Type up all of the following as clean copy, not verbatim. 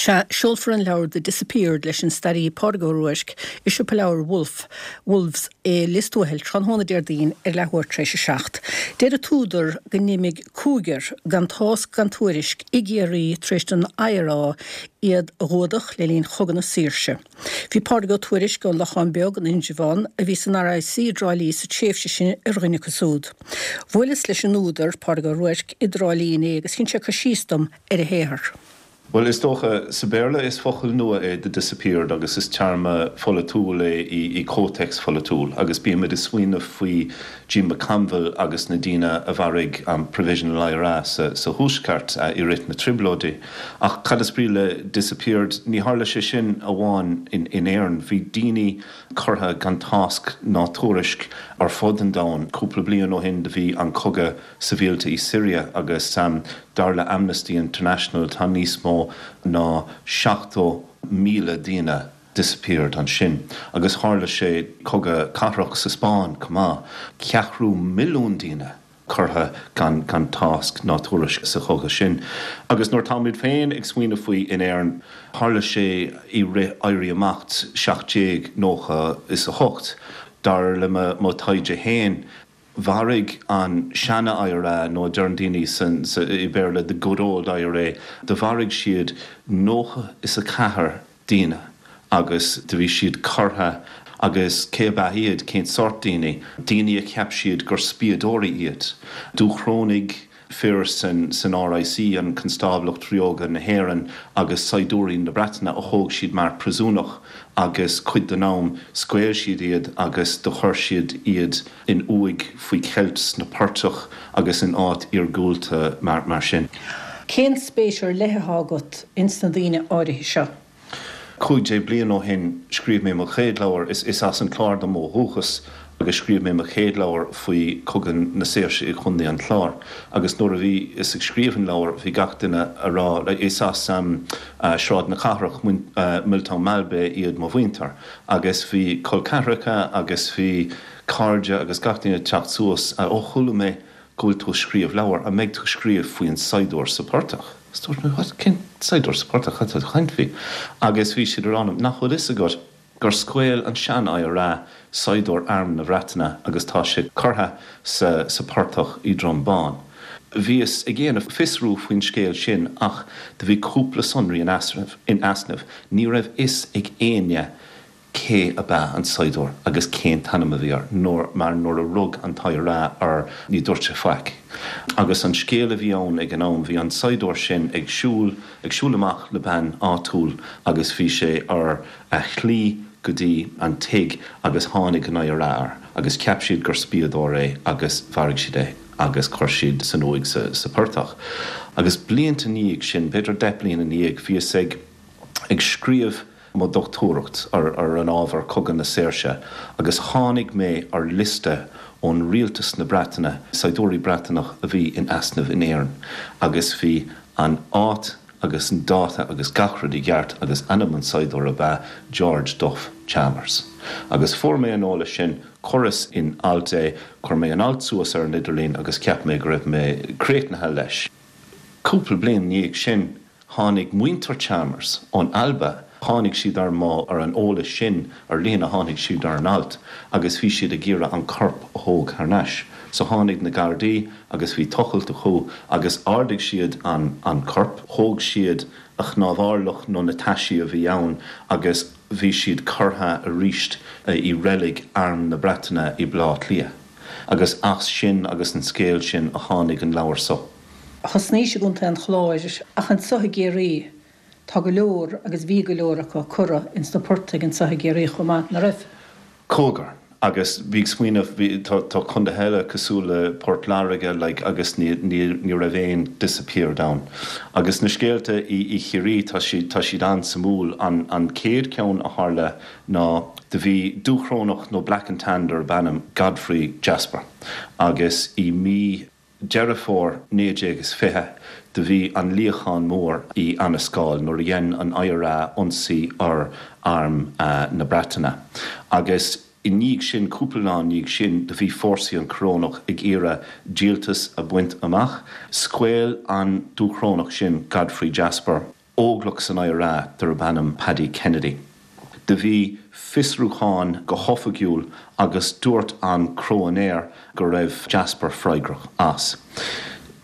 Sea, seolfar an leabhar The Disappeared leis an staraí Pádraig Ó Ruairc i siopa leabhar Wolfe, Wolves i Lios Tuathail tráthnóna Déardaoin ar leathuair tar éis a 7. Deir an t-údar go n-imigh cúigear gan tásc gan tuairisc i gCiarraí tar éis don IRA iad a ghuadach le linn Chogadh na Saoirse. Bhí Pádraig Ó Tuairisg ón Lochán Beag in Indreabhán, a bhí san RIC i dTrá Lí sa tréimhse sin, ar dhuine acu siúd. Bhuaileas leis an údar, Pádraig Ó Ruairc, i dTrá Lí inné agus dhein sé cur síos dom ar a shaothar. Bhuel, is dócha, sa Bhéarla is focal nua é 'the disappeared' agus is téarma pholaitiúil é i comhthéacs pholaitiúil agus bímid ag smaoineamh faoi Jim McConville agus na daoine a mharaigh an Provisional IRA sa Thuaisceart i rith na Trioblóidí. Ach cad is brí le 'disappeared'? Ní tharla sé sin amháin in Éirinn. Bhí daoine curtha gan tásc ná tuairisc ar fud an domhain. Cúpla bliain ó shin do bhí an cogadh sibhialta i Siria agus dar le Amnesty International tá níos mó ná 70,000 daoine disappeared ansin. Agus tharla sé cogadh cathrach sa Spáinn chomh maith, ceathrú milliún daoine curtha gan gan tásc ná tuairisc sa chogadh sin. Agus nuair táimid féin ag smaoineamh faoi in Éirinn, tharla sé i rith Éirí Amach 1798, dar le mo taighde féin, Mharaigh an seana-IRA, nó deireann daoine i Béarla the good old IRA, do mharaigh siad 94 daoine agus do bhí siad curtha agus cé ab ea iad, cén sórt daoine? Daoine a cheap siad gur spiadóirí iad. Dúchrónaigh. fir san RIC, an Constáblacht Ríoga na hÉireann, agus saighdiúirí na Breataine a thóg siad mar príosúnach agus cuid den am scaoil siad iad agus do chuir siad iad in uaigh faoi cheilt sna portaigh agus in áit iargúlta mar sin. Cén spéis ar leith atá agat ins na daoine áirithe seo? 15 bliain ó shin scríobh mé mo chéad leabhar, is as an Clár dom ó dhúchas, agus scríobh mé mo chéad leabhar faoi Chogadh na Saoirse i gContae an Chláir. Agus nuair a bhíos ag scríobh an leabhair bhí gach duine a rá, is as Sráid na Cathrach, Milltown Malbay iad mo mhuintir, agus bhí col ceathracha agus bhí cairde agus gach duine ag teacht suas, ó chuala mé go bhfuil tú ag scríobh leabhar, an mbeidh tú ag scríobh faoin saighdiúir sa portach? Is dúirt mé, what, cén saighdiúir sa portach, cad tá tú ag caint faoi? Agus bhí siad a rá liom, nach bhfuil fhios agat gur scaoil an sean-IRA saighdiúir arm na Bhreataine agus tá sé curtha sa sa portach i Droim Bán. Bhíos ag dhéanamh fiosrú faoin scéal sin ach do bhí cúpla sonraí in easnamh, ní raibh fhios ag éinne cé ab ea an saighdiúir agus cén t-ainm a bhí air, nuair, mar nuair a rug an t-IRA air ní dúirt sé faic. Agus an scéal a bhí ann ag an am, bhí an saighdiúir sin ag siúl, ag siúl amach le bean áitiúil agus bhí sé ar a shlí go dtí an tigh agus tháinig an IRA air agus cheap siad gur spiadóir é agus mharaigh siad é agus chuir siad san uaigh sa, sa portach. Agus blianta ina dhiaidh sin, b'fhéidir 10 bliain ina dhiaidh, bhíos ag, ag scríobh mo dhochtúireacht ar an ábhar Cogadh na Saoirse agus tháinig mé ar liosta ón Rialtas na Breataine, saighdiúirí Breataineach a bhí in easnamh in Éirinn agus bhí an áit agus an dáta agus gach rud i gceart agus ainm an saighdiúir ab ea George Duff Chalmers. Agus fuair mé an eolas sin, chuireas in alt é, chuir mé an alt suas ar an idirlíon agus cheap mé go raibh mé críochnaithe leis. Cúpla bliain ina dhiaidh sin, Tháinig muintir Chalmers ón Alba, tháinig siad ar mo, ar an eolas sin ar líne, tháinig siad ar an alt agus bhí siad ag iarraidh an corp a thóg thar n-ais. So tháinig na Gardaí agus bhí tochailt acu agus ardaigh siad an, an corp, thóg siad a chnámharlach nó na taisí a bhí ann agus bhí siad curtha aríst i reilig Arm na Breataine i Baile Átha Cliath. Agus as sin agus an scéal sin a tháinig an leabhar so. Thosnaís i gContae an Chláir ach anso i gCiarraí tá go leor agus bhí go leor acu curtha ins na portaigh anso i gCiarraí chomh maith, ná raibh? Cúigear. Agus bhí ag smaoineamh, bhí, tá, tá contaetha eile cosúil le Port Láirge like agus ní, ní, ní raibh aon disappeared ann. Agus na scéalta i, i Chiarraí tá siad, tá siad an-suimiúil. An, an chéad cheann a tharla ná do bhí Dúchrónach nó Black and Tan darb ainm Godfrey Jasper agus i mí, Deireadh Fómhair 1920 do bhí an luíochán mór i Annascaul nuair a dhein an IRA ionsaí ar arm na Breataine agus i ndiaidh sin, cúpla lá i ndiaidh sin, do bhí fórsaí an Chorónach ag iarraidh díoltas a bhaint amach. Scaoil an Dúchrónach sin, Godfrey Jasper. Óglach san IRA darb ainm Paddy Kennedy. Do bhí fiosrúchán go hoifigiúil agus dúirt an cróinéir go raibh Jasper freagrach as.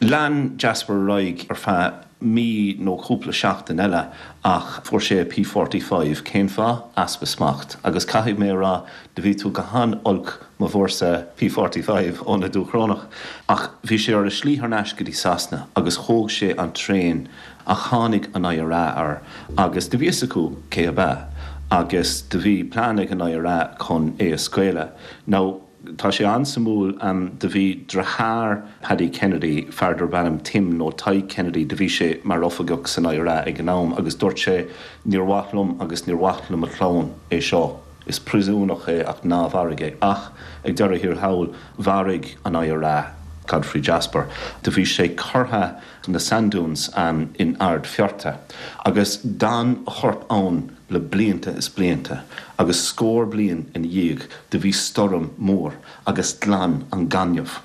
Lean Jasper ar aghaidh ar feadh mí nó cúpla seachtain eile ach fuair sé a P45. Cén fáth? Easpa smacht. Agus caithfidh mé a rá, do bhí tú go han-olc má bhfuair P45 ó na Dúchrónach. Ach bhí sé ar a slí thar n-ais go dtí Sasana agus thóg sé an traein Ach tháinig an IRA air agus do bhí fhios acu cé ab ea agus do bhí plean ag an IRA chun é a scaoileadh. Now, tá sé an-suimiúil, do bhí driotháir Paddy Kennedy, fear darb ainm Tim nó Tadhg Kennedy, do bhí sé mar oifigeach san IRA ag an am agus dúirt sé níor mhaith liom agus níor mhaith le mo chlann é seo, is príosúnach é ach ná mharaigh é. Ach ag deireadh thiar thall, mharaigh an IRA Godfrey Jasper. Do bhí sé curtha na Sand Dunes in Ard Fearta, agus d'fhan a chorp ann le blianta is blianta, agus scór bliain ina dhiaidh do bhí stoirm mór agus ghlan an gaineamh,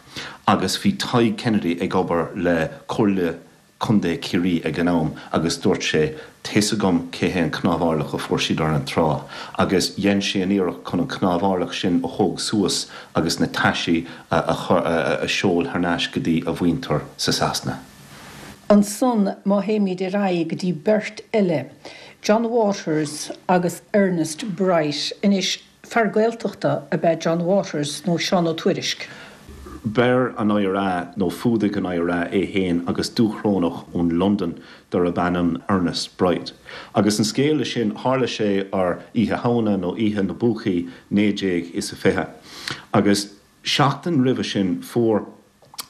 agus bhí Tadhg Kennedy ag obair le Comhairle Contae Chiarraí ag an am agus dúirt sé Tá's agam cé hé an cnámharlach a fuair siad ar an trá, agus dhein sé an iarracht chun an cnámharlach sin a thóg suas agus na taisí a a sheol thar n-ais go dtí a mhuintir sa Sasana. Ansan má théimid ar aghaidh go dtí beirt eile, John Waters agus Ernest Bright. Anois, Fear Gaeltachta ab ea John Waters nó Seán Ó Tuairisg. Bheir an IRA, nó fuadaigh an IRA é fhéin agus Dúchrónach ón Londain darb ainm Ernest Bright. Agus an scéal le sin, tharla sé ar Oíche Shamhna nó Oíche na bPúcaí 1920. Agus seachtain roimhe sin fuair.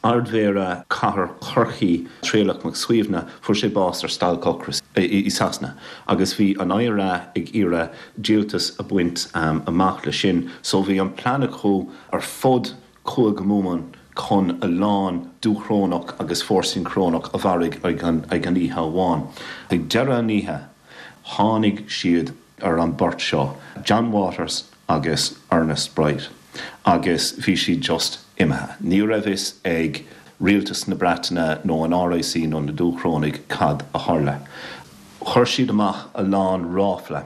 Ardmhéara Chathair Chorcaí, Traolach Mac Suibhne, fuair sé bás ar stailc ocrais i Sasana agus bhí an IRA ag iarraidh díoltas a bhaint amach le sin so bhí an plean acu ar fud Chúige Mumhan chun a lán Dúchrónach agus fórsaí Crónach a mharaigh ag an oíche amháin. Ag deireadh an oíche tháinig siad ar an beirt seo, John Waters agus Ernest Bright, agus bhí siad just imithe. Ní raibh fhios ag Rialtas na Breataine nó an RIC nó na Dúchrónaigh cad a tharla. Chuir siad amach a lán ráfla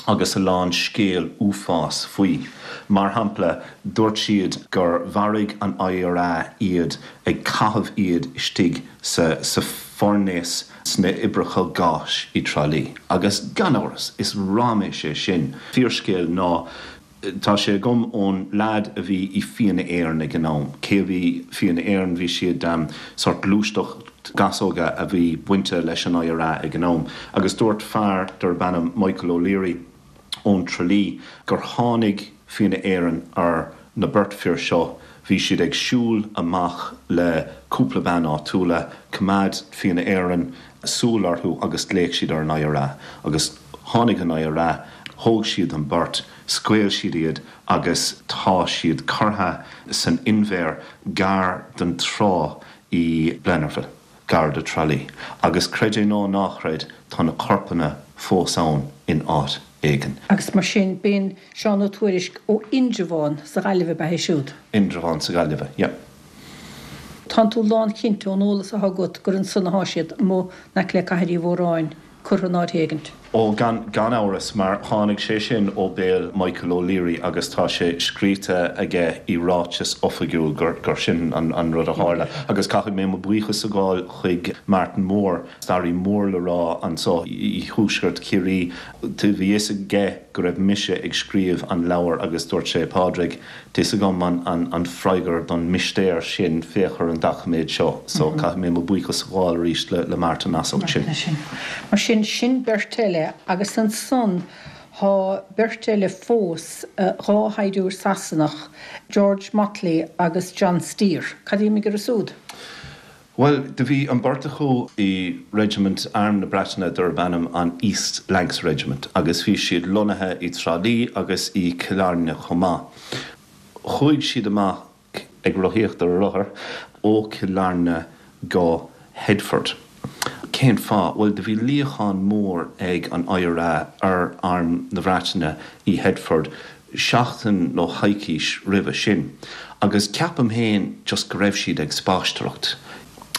agus a lán scéal uafás faoi. Mar shampla, dúirt siad gur mharaigh an IRA iad ag caitheamh iad istigh sa sa foirnéas sna oibreacha gáis i dTrá Lí. Agus gan amhras, is raiméis é sin. Fíorscéal ná tá sé agam ón leaid a bhí i Fianna Éireann ag an am. Cé a bhí Fianna Éireann? Bhí siad sórt gluaisteacht gasóga a bhí bainte leis an IRA ag an am. Agus dúirt fear darb ainm Michael O'Leary, ón Tralee gur tháinig Fianna Éireann ar na beirt fir seo, bhí siad ag siúl amach le cúpla bean áitiúla, coimeád Fianna Éireann súil orthu agus ghlaoch siad ar an IRA agus tháinig an IRA, thóg siad an beirt, scaoil siad iad agus tá siad curtha san inbhear gar don trá i Blennerville. gar do Tralee. Agus creid é nó ná chreid, tá na corpanna fós ann in áit éigin. Agus mar sin, b'in Seán Ó Tuairisg ó Indreabhán sa Ghaillimh ab ea é siúd? Indreabhán sa Ghaillimhe, yeah. Tánn tú lánchinnte ón eolas atá agat gur ansan athá siad, amuigh in aice le Cathair Uí Mhóráin, curtha in áit éigint. Ó, gan, gan amhras, mar tháinig sé sin ó béal Michael O'Leary agus tá sé scríte aige i ráiteas oifigiúil gur, gur sin an, an rud a tharla. Agus caithfidh mé mo buíochas a ghabháil chuig Martin Moore, staraí mór le rá anso i thuaisceart Chiarraí. Bhí fhios aige go raibh mise ag scríobh an leabhair agus dúirt sé, Pádraig, Tá's agam an freagra don mistéir sin, féach ar an doiciméad seo. So, caithfidh mé mo buíochas a ghabháil arís le Martin as ucht sin. Mar sin, sin beirt eile agus ansan thá beirt eile fós, 2 shaighdiúir Sasanach, George Motley agus John Steer. Cad a d'imigh orthu súd? Bhuel, do bhí an beirt acu i reisimint Arm na Breataine darb ainm an East Lancs Regiment agus bhí siad lonnaithe i dTrá Lí agus i Cill Airne chomh maith. Chuaigh siad amach ag rothaíocht ar a rothair ó Chill Airne go Headford. Cén fáth? Bhuel, do bhí luíochán mór ag an IRA ar Arm na Breataine i Headford seachtain nó coicís roimhe sin agus ceapaim féin just go raibh siad ag spaisteoireacht.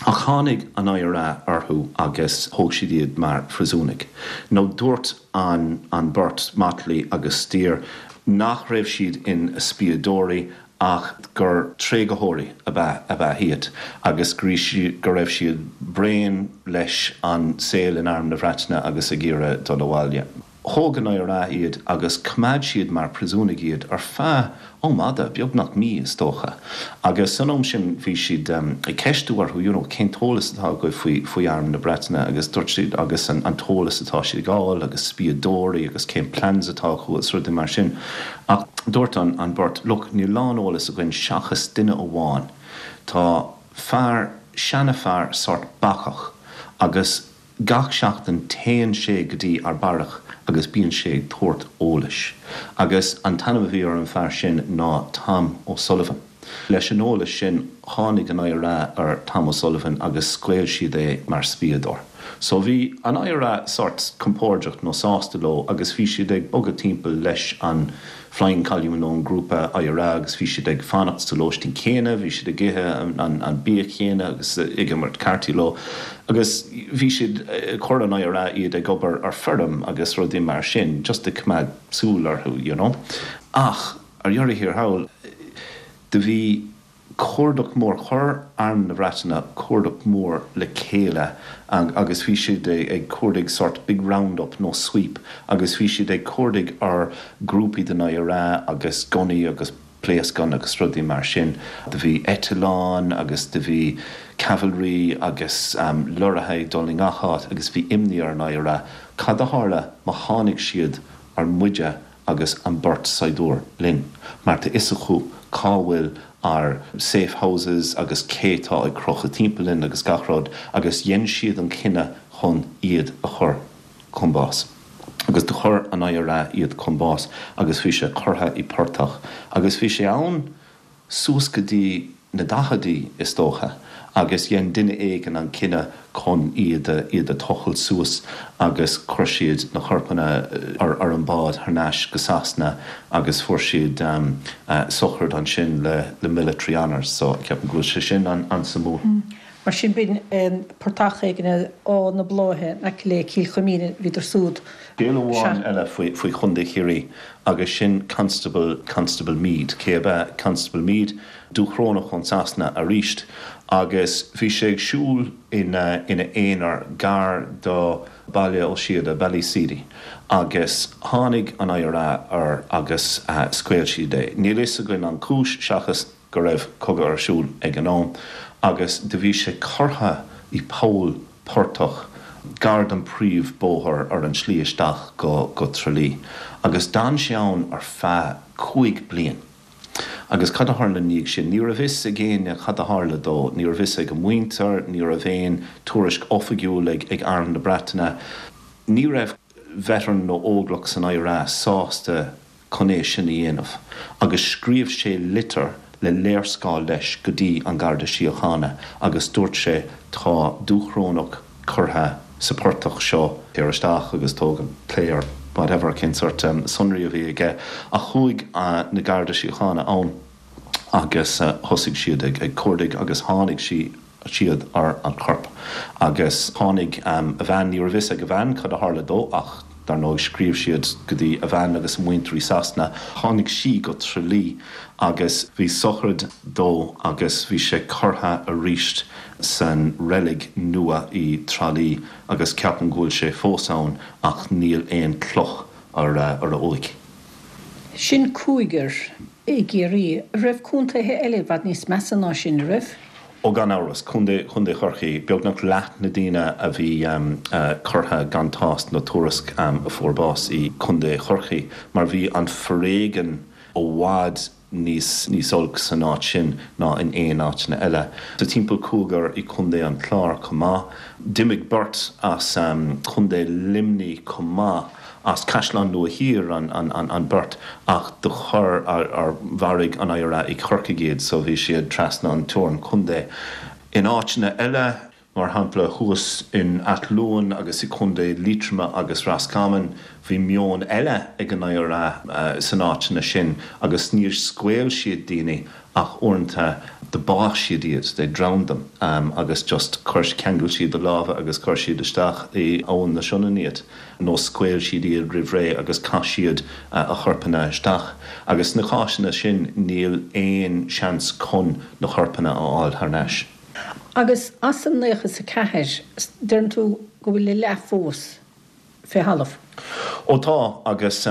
Ach tháinig an IRA orthu agus thóg siad iad mar phríosúnaigh. Nó dúirt an an beirt, Motley agus Steer, nach raibh siad ina spiadóirí ach gur tréigtheoirí ab ea ab ea iad agus go go raibh siad bréan leis an saol in Arm na Breataine agus ag iarraidh dul abhaile. Thóg an IRA iad agus choimeád siad mar phríosúnaigh iad ar feadh am fhada, beagnach mí is dócha. Agus san am sin bhí siad ag ceistiú orthu, you know, cén t-eolas atá agaibh faoi, faoi Arm na Breataine agus dúirt siad agus an t-eolas atá siad ag fháil agus spiadóirí agus cén plans atá acu agus rudaí mar sin. Ach dúirt an, an bheirt, look, níl a lán eolas againn seachas duine amháin. Tá fear, seana-fhear sort bacach agus Gach seachtain téann sé go dtí ár beairic agus bíonn sé ag tabhairt eolais. Agus an t-ainm a bhí ar an fear sin ná Tom O'Sullivan. Leis an eolas sin tháinig an IRA ar Tom O'Sullivan agus scaoil siad é mar spiadóir. So bhí an IRA sort compordach nó sásta leo agus bhí siad ag bogadh timpeall leis an Flying Column nó an grúpa IRA agus bhí siad ag fanacht sa lóistín céanna, bhí siad ag ithe an bia chéanna agus ag imirt cártaí leo agus bhí siad, chuir an IRA iad ag obair ar feirm agus rudaí mar sin just ag coimeád súil orthu you know. Ach ar dheireadh thiar thall do bhí cuardach mór. Chuir Arm na Breataine cuardach mór le chéile agus bhí siad ag cuardaigh sort big round up nó sweep agus bhí siad ag cuardaigh ar grúpaí den IRA agus gunnaí agus pléascáin agus rudaí mar sin. Do bhí eitleáin agus do bhí cavalry agus lorraithe ag dul i ngach áit agus bhí imní ar an IRA cad a tharla má tháinig siad ar muide agus an beirt saighdiúir linn, mar tá fhios acu cá bhfuil ár safe houses agus cé tá ag crochadh timpeall linn agus gach rud, agus dhein siad an cinneadh chun iad a chur chun bás. Agus do chuir an IRA iad chun bás agus bhí sé curtha i portach agus bhí sé ann suas go dtí na daicheadaí, is dócha, agus dhein duine éigin an cinneadh chun iad a, iad a tochailt suas agus chuir siad na corpanna ar, ar an bád thar n-ais go Sasana agus fuair siad sochraid ansin le, le military honours. So, ceapaim go bhfuil sé sin an, an-suimiúil. Mar sin, b'in portach éigin ar Áth na Bláithe in aice le Cill Chuimín, bhíodar súd. Scéal amháin eile faoi, faoi Chontae Chiarraí agus sin Constable, Constable Meade. Cé ab ea Constable Meade? Dúchrónach ón Sasana aríst agus bhí sé ag siúl ina, ina aonar gar do Baile Ó Síoda, Ballyseedy, agus tháinig an IRA air agus scaoil siad é. Níl fhios againn an chúis seachas go raibh cogadh ar siúl ag an am agus do bhí sé curtha i poll portach gar don príomh bóthar ar an slí isteach go go Tralee agus d'fhan sé ann ar feadh 5 bliain. Agus cad a tharla ina dhiaidh sin? Ní raibh fhios ag éinne cad a tharla dó, ní raibh fhios ag a mhuintir, ní raibh aon tuairisc oifigiúil ag ag Arm na Breataine. Ní raibh veteran nó óglach san IRA sásta chun é sin a dhéanamh agus scríobh sé litir le léarscáil leis go dtí an Garda Síochána agus dúirt sé tá Dúchrónach curtha sa portach seo, téir isteach agus tóg an clay or whatever cén sort sonraí a bhí aige ach chuaigh na Garda Síochána ann agus thosaigh siad ag cuardaigh agus tháinig sí siad ar an chorp agus tháinig a bhean, ní raibh fhios ag a bhean cad a tharla dó ach dar ndóigh scríobh siad go dtí a bhean agus a muintir i Sasana, tháinig sí go Tralee agus bhí sochraid dó agus bhí sé curtha aríst san reilig nua i Tralee agus ceapaim go bhfuil sé fós ann ach níl aon cloch ar a uaigh. Sin cúigear i gCiarraí. An raibh contaetha eile i bhfad níos measa ná sin, an raibh? Ó gan amhras. Contae, Contae Chorcaí, beagnach leath na daoine a bhí curtha gan tásc nó tuairisc a fuair bás i gContae Chorcaí mar bhí an foréigean i bhfad níos níos olc san áit sin ná in aon áiteanna eile. Tá timpeall cúigear i Contae an Chláir chomh maith. D'imigh beirt as Contae Luimnigh chomh maith, as Caisleán Nua Thiar an an beirt ach do chuir ar mharaigh an IRA i Corcaigh iad so bhí siad trasna an teorainn contae. In áiteanna eile. Mar shampla, thuas in Ath Luain agus i Contae Liatroma agus Roscommon, bhí meon eile ag an IRA san áiteanna sin agus níor scaoil siad daoine. Ach uaireanta do bádh siad iad, they drowned them, agus just chuir, cheangail siad a lámha agus chuir siad isteach i Abhainn na Sionainne iad, nó scaoil siad iad roimh ré agus chaith siad a chorpanna isteach. Agus sna cásanna sin níl aon seans chun na corpanna a fháil thar n-ais. Agus as an 94, deireann tú go bhfuil a leath fós fé thalamh? Ó tá, agus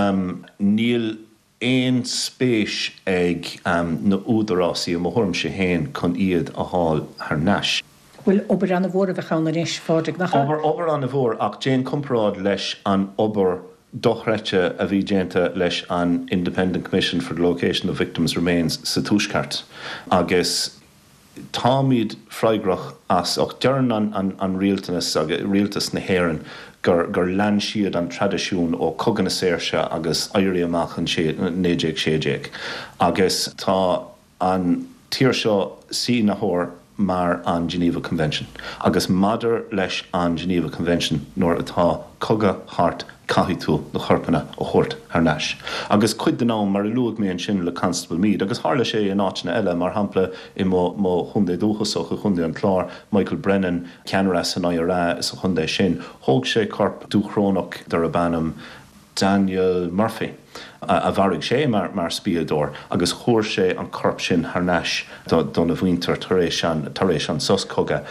níl aon spéis ag na údarásaí, i mo thuairimse féin, chun iad a fháil thar n-ais. Bhuel, obair ana-mhór a bheadh ann anois, a Phádraig, nach ea? Obair, obair ana-mhór, ach déan comparáid leis an obair dochreidte a bhí déanta leis an Independent Commission for the Location of Victims' Remains sa Tuaisceart agus Táimid freagrach as, ach deireann an rialtanas agus rialtas na hÉireann gur gur lean siad an traidisiún ó Cogadh na Saoirse agus Éirí Amach 1916 agus tá an tír seo sínitheoir mar an Geneva Convention agus maidir leis an Geneva Convention nuair atá cogadh thart caithfidh tú na corpanna a thabhairt thar n-ais. Agus cuid den am, mar a luaigh mé ansin le Constable Meade, agus tharla sé in áiteanna eile, mar shampla i mo mo chontae dúchasach, i gContae an Chláir, Michael Brennan, ceannaire san IRA sa chontae sin, thóg sé corp Dúchrónach darb ainm Daniel Murphy, a mharaigh sé mar mar spiadóir, agus chuir sé an corp sin thar n-ais dona mhuintir tar éis an tar éis an sos cogaidh.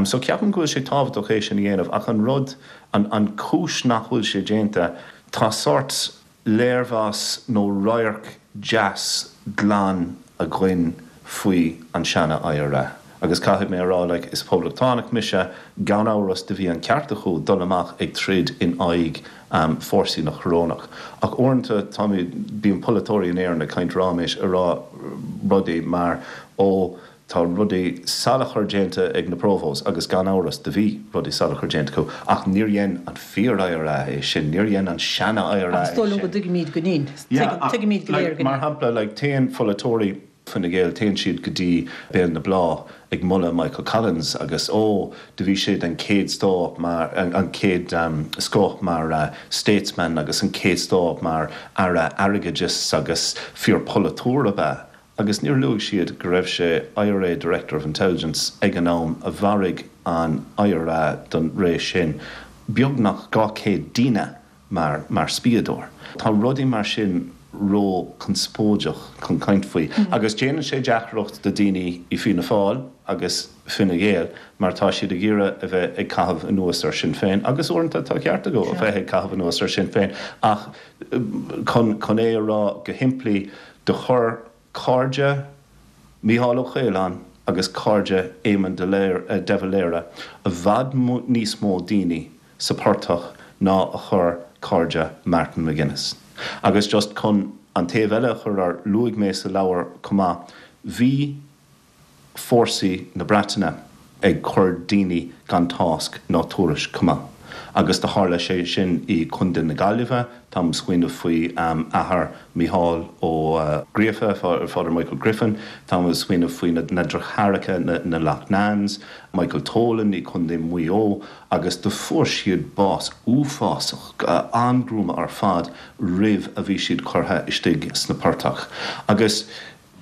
So ceapaim go bhfuil sé tábhachtach é sin a dhéanamh ach an rud, An chúis nach bhfuil sé déanta, tá sórt léirmheas nó radharc deas glan againn faoi an seana IRA. Agus caithfidh mé a rá, like, is poblachtánach mise, gan amhras do bhí an ceart acu dul amach ag troid in aghaidh fórsaí na Corónach. Ach uaireanta táimid, bíonn polaiteoirí in Éirinn ag caint ráiméis, ag rá rudaí mar, ó, Tá rudaí salachar déanta ag na Provos agus gan amhras do bhí rudaí salachar déanta acu ach níor dhein an fíor IRA é sin, níor dhein an seana IRA é sin. Ach is dóigh liom go dtuigimíd go ndein. Tuigimíd go léir go ndein. Mar shampla, like, téann pholaiteoirí Fine Gael, téann siad go dtí Béal na Bláth ag moladh Michael Collins agus ó, do bhí sé den chéad stóth mar, an chéad scoth mar statesman agus an chéad scoth mar Aire Airgeadais agus fíor polaiteoir ab ea. Agus níor luaigh siad go raibh sé IRA Director of Intelligence ag an am a mharaigh an IRA don ré sin beagnach 200 daoine mar mar spiadóir. Tá rudaí mar sin ró conspóideach chun caint faoi agus déanann sé deacracht do daoine i Fianna Fáil agus Fine Gael mar tá siad ag iarraidh a bheith ag caitheamh anuas ar Sinn Féin agus uaireanta tá ceart acu a bheith ag caitheamh anuas ar Sinn Féin ach chun chun é a rá go shimplí Do chuir cairde Mícheál Ó Caoláin agus cairde Éamon de Valera i bhfad níos mó daoine sa portach ná a chuir cairde Martin McGuinness. Agus just chun an taobh eile a chur ar, luaigh mé sa leabhar chomh maith, bhí fórsaí na Breataine ag cur daoine gan tásc ná tuairisc chomh maith. Agus do tharla sé sin i Contae na Gaillimhe, táim ag smaoineamh faoi athair Mícheál Ó Gríofa, Father Michael Griffin, táim ag smaoineamh faoi na deartháireacha, na Loughnanes, Michael Tolan i Contae Mhaigh Eo, agus do fuair siad bás uafásach, an-ghruama ar fad roimh a bhí siad curtha istigh sna portach. Agus.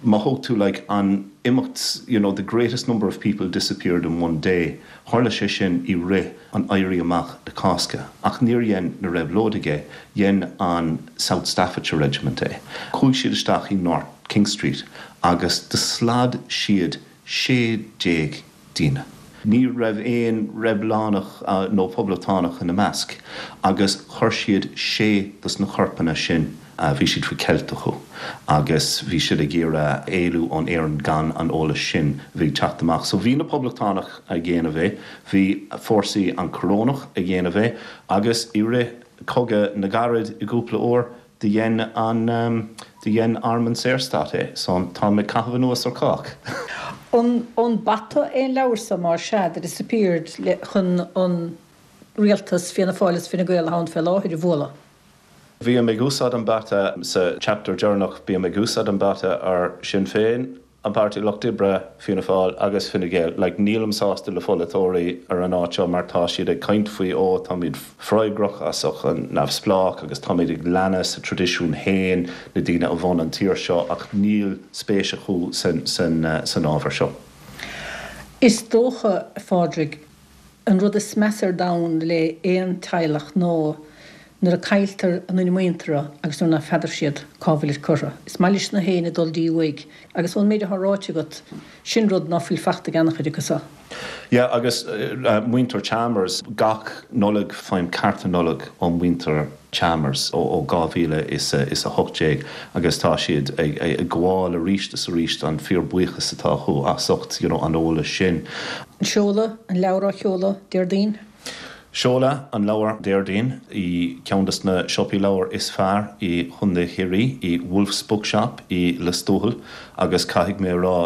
Má thóg tú like an imeacht you know the greatest number of people disappeared in one day, tharla sé sin i rith an Éirí Amach na Cásca ach níor dhein na réabhlóidigh é, dhein an South Staffordshire Regiment é. Chuaigh siad isteach i North King Street agus do slad siad 16 daoine. Ní raibh aon reibiliúnach nó poblachtánach ina measc agus chuir siad sé dos na corpanna sin, bhí siad faoi cheilt acu agus bhí siad ag iarraidh éalú ón Éirinn gan an eolas sin a bhí ag teacht amach. So bhí na poblachtánach ag dhéanamh é, bhí fórsaí an Corónach ag dhéanamh é agus i rith Cogadh na gCarad i gcúpla uair, Do dhein an, do dhein Arm an Saorstát é, so táim ag caitheamh anuas ar chách. An, an bata é an leabhar so, más ea, The Disappeared, le, chun an rialtas, Fianna Fáil is Fine Gael atá ann fé láthair, a bhualadh? Bím ag úsáid an bata sa chapter deireanach, bím ag úsáid an bata ar Sinn Féin. An Páirtí Lucht Oibre, Fianna Fáil agus Fine Gael. Like, nílim sásta le pholaiteoirí ar an áit seo mar tá siad ag caint faoi ó táimid freagrach as an neamhspleách agus táimid ag leanadh sa traidisiún féin, na daoine a bhun an tír seo ach níl spéis acu san san san ábhar seo. Is dócha, a Phádraig, An rud is measa ar domhan le aon teaghlach ná nuair a cailltear a nduine muinteartha agus nuair ná feadar siad cá bhfuilid curtha. Is maith leis na héinne dul dtí uaigh agus ón méid atá ráite agat, sin rud ná fuil fachta ag an-chuid acu so. Yeah agus muintir Chalmers, gach Nollaig faighim cárta Nollag ó mhuintir Chalmers ó 2018 agus tá siad ag gabháil arís is arís an fíor-buíochas atá acu as ucht you know an eolas sin. Seoladh an leabhar á sheoladh Déardaoin. Seoladh an leabhar Déardaoin i ceann des na siopaí leabhar is fearr i Chontae Chiarraí, i Wolfe's Bookshop i Lios Tuathail agus caithfidh mé a rá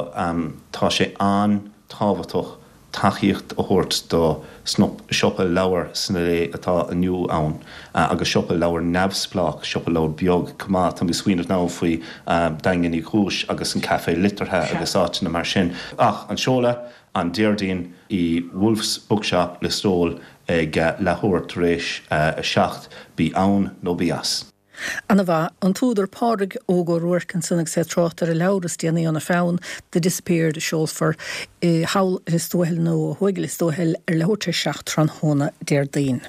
tá sé an-tábhachtach tacaíocht a thabhairt do siopa leabhar sna lae atá inniu ann agus siopa leabhar neamhspleách, siopa leabhar beag chomh maith. Tá mé ag smaoineamh now faoi Daingean Uí Chúis agus an Café Liteartha agus áiteanna mar sin. Ach an seoladh, an Déardaoin i Wolfe's Bookshop, Lios Tuathail ag leathuair tar éis a 7, bí ann nó bí as. Ana mhaith. An t-údar Pádraig Óg Ó Ruairc ansan agus é ag trácht ar a leabhar is déanaí óna pheann, The Disappeared, a seolfar i thall i Lios Tuathail nó ó thuaidh i Lios Tuathail ar leathuair tar éis 7 tráthnóna Déardaoin.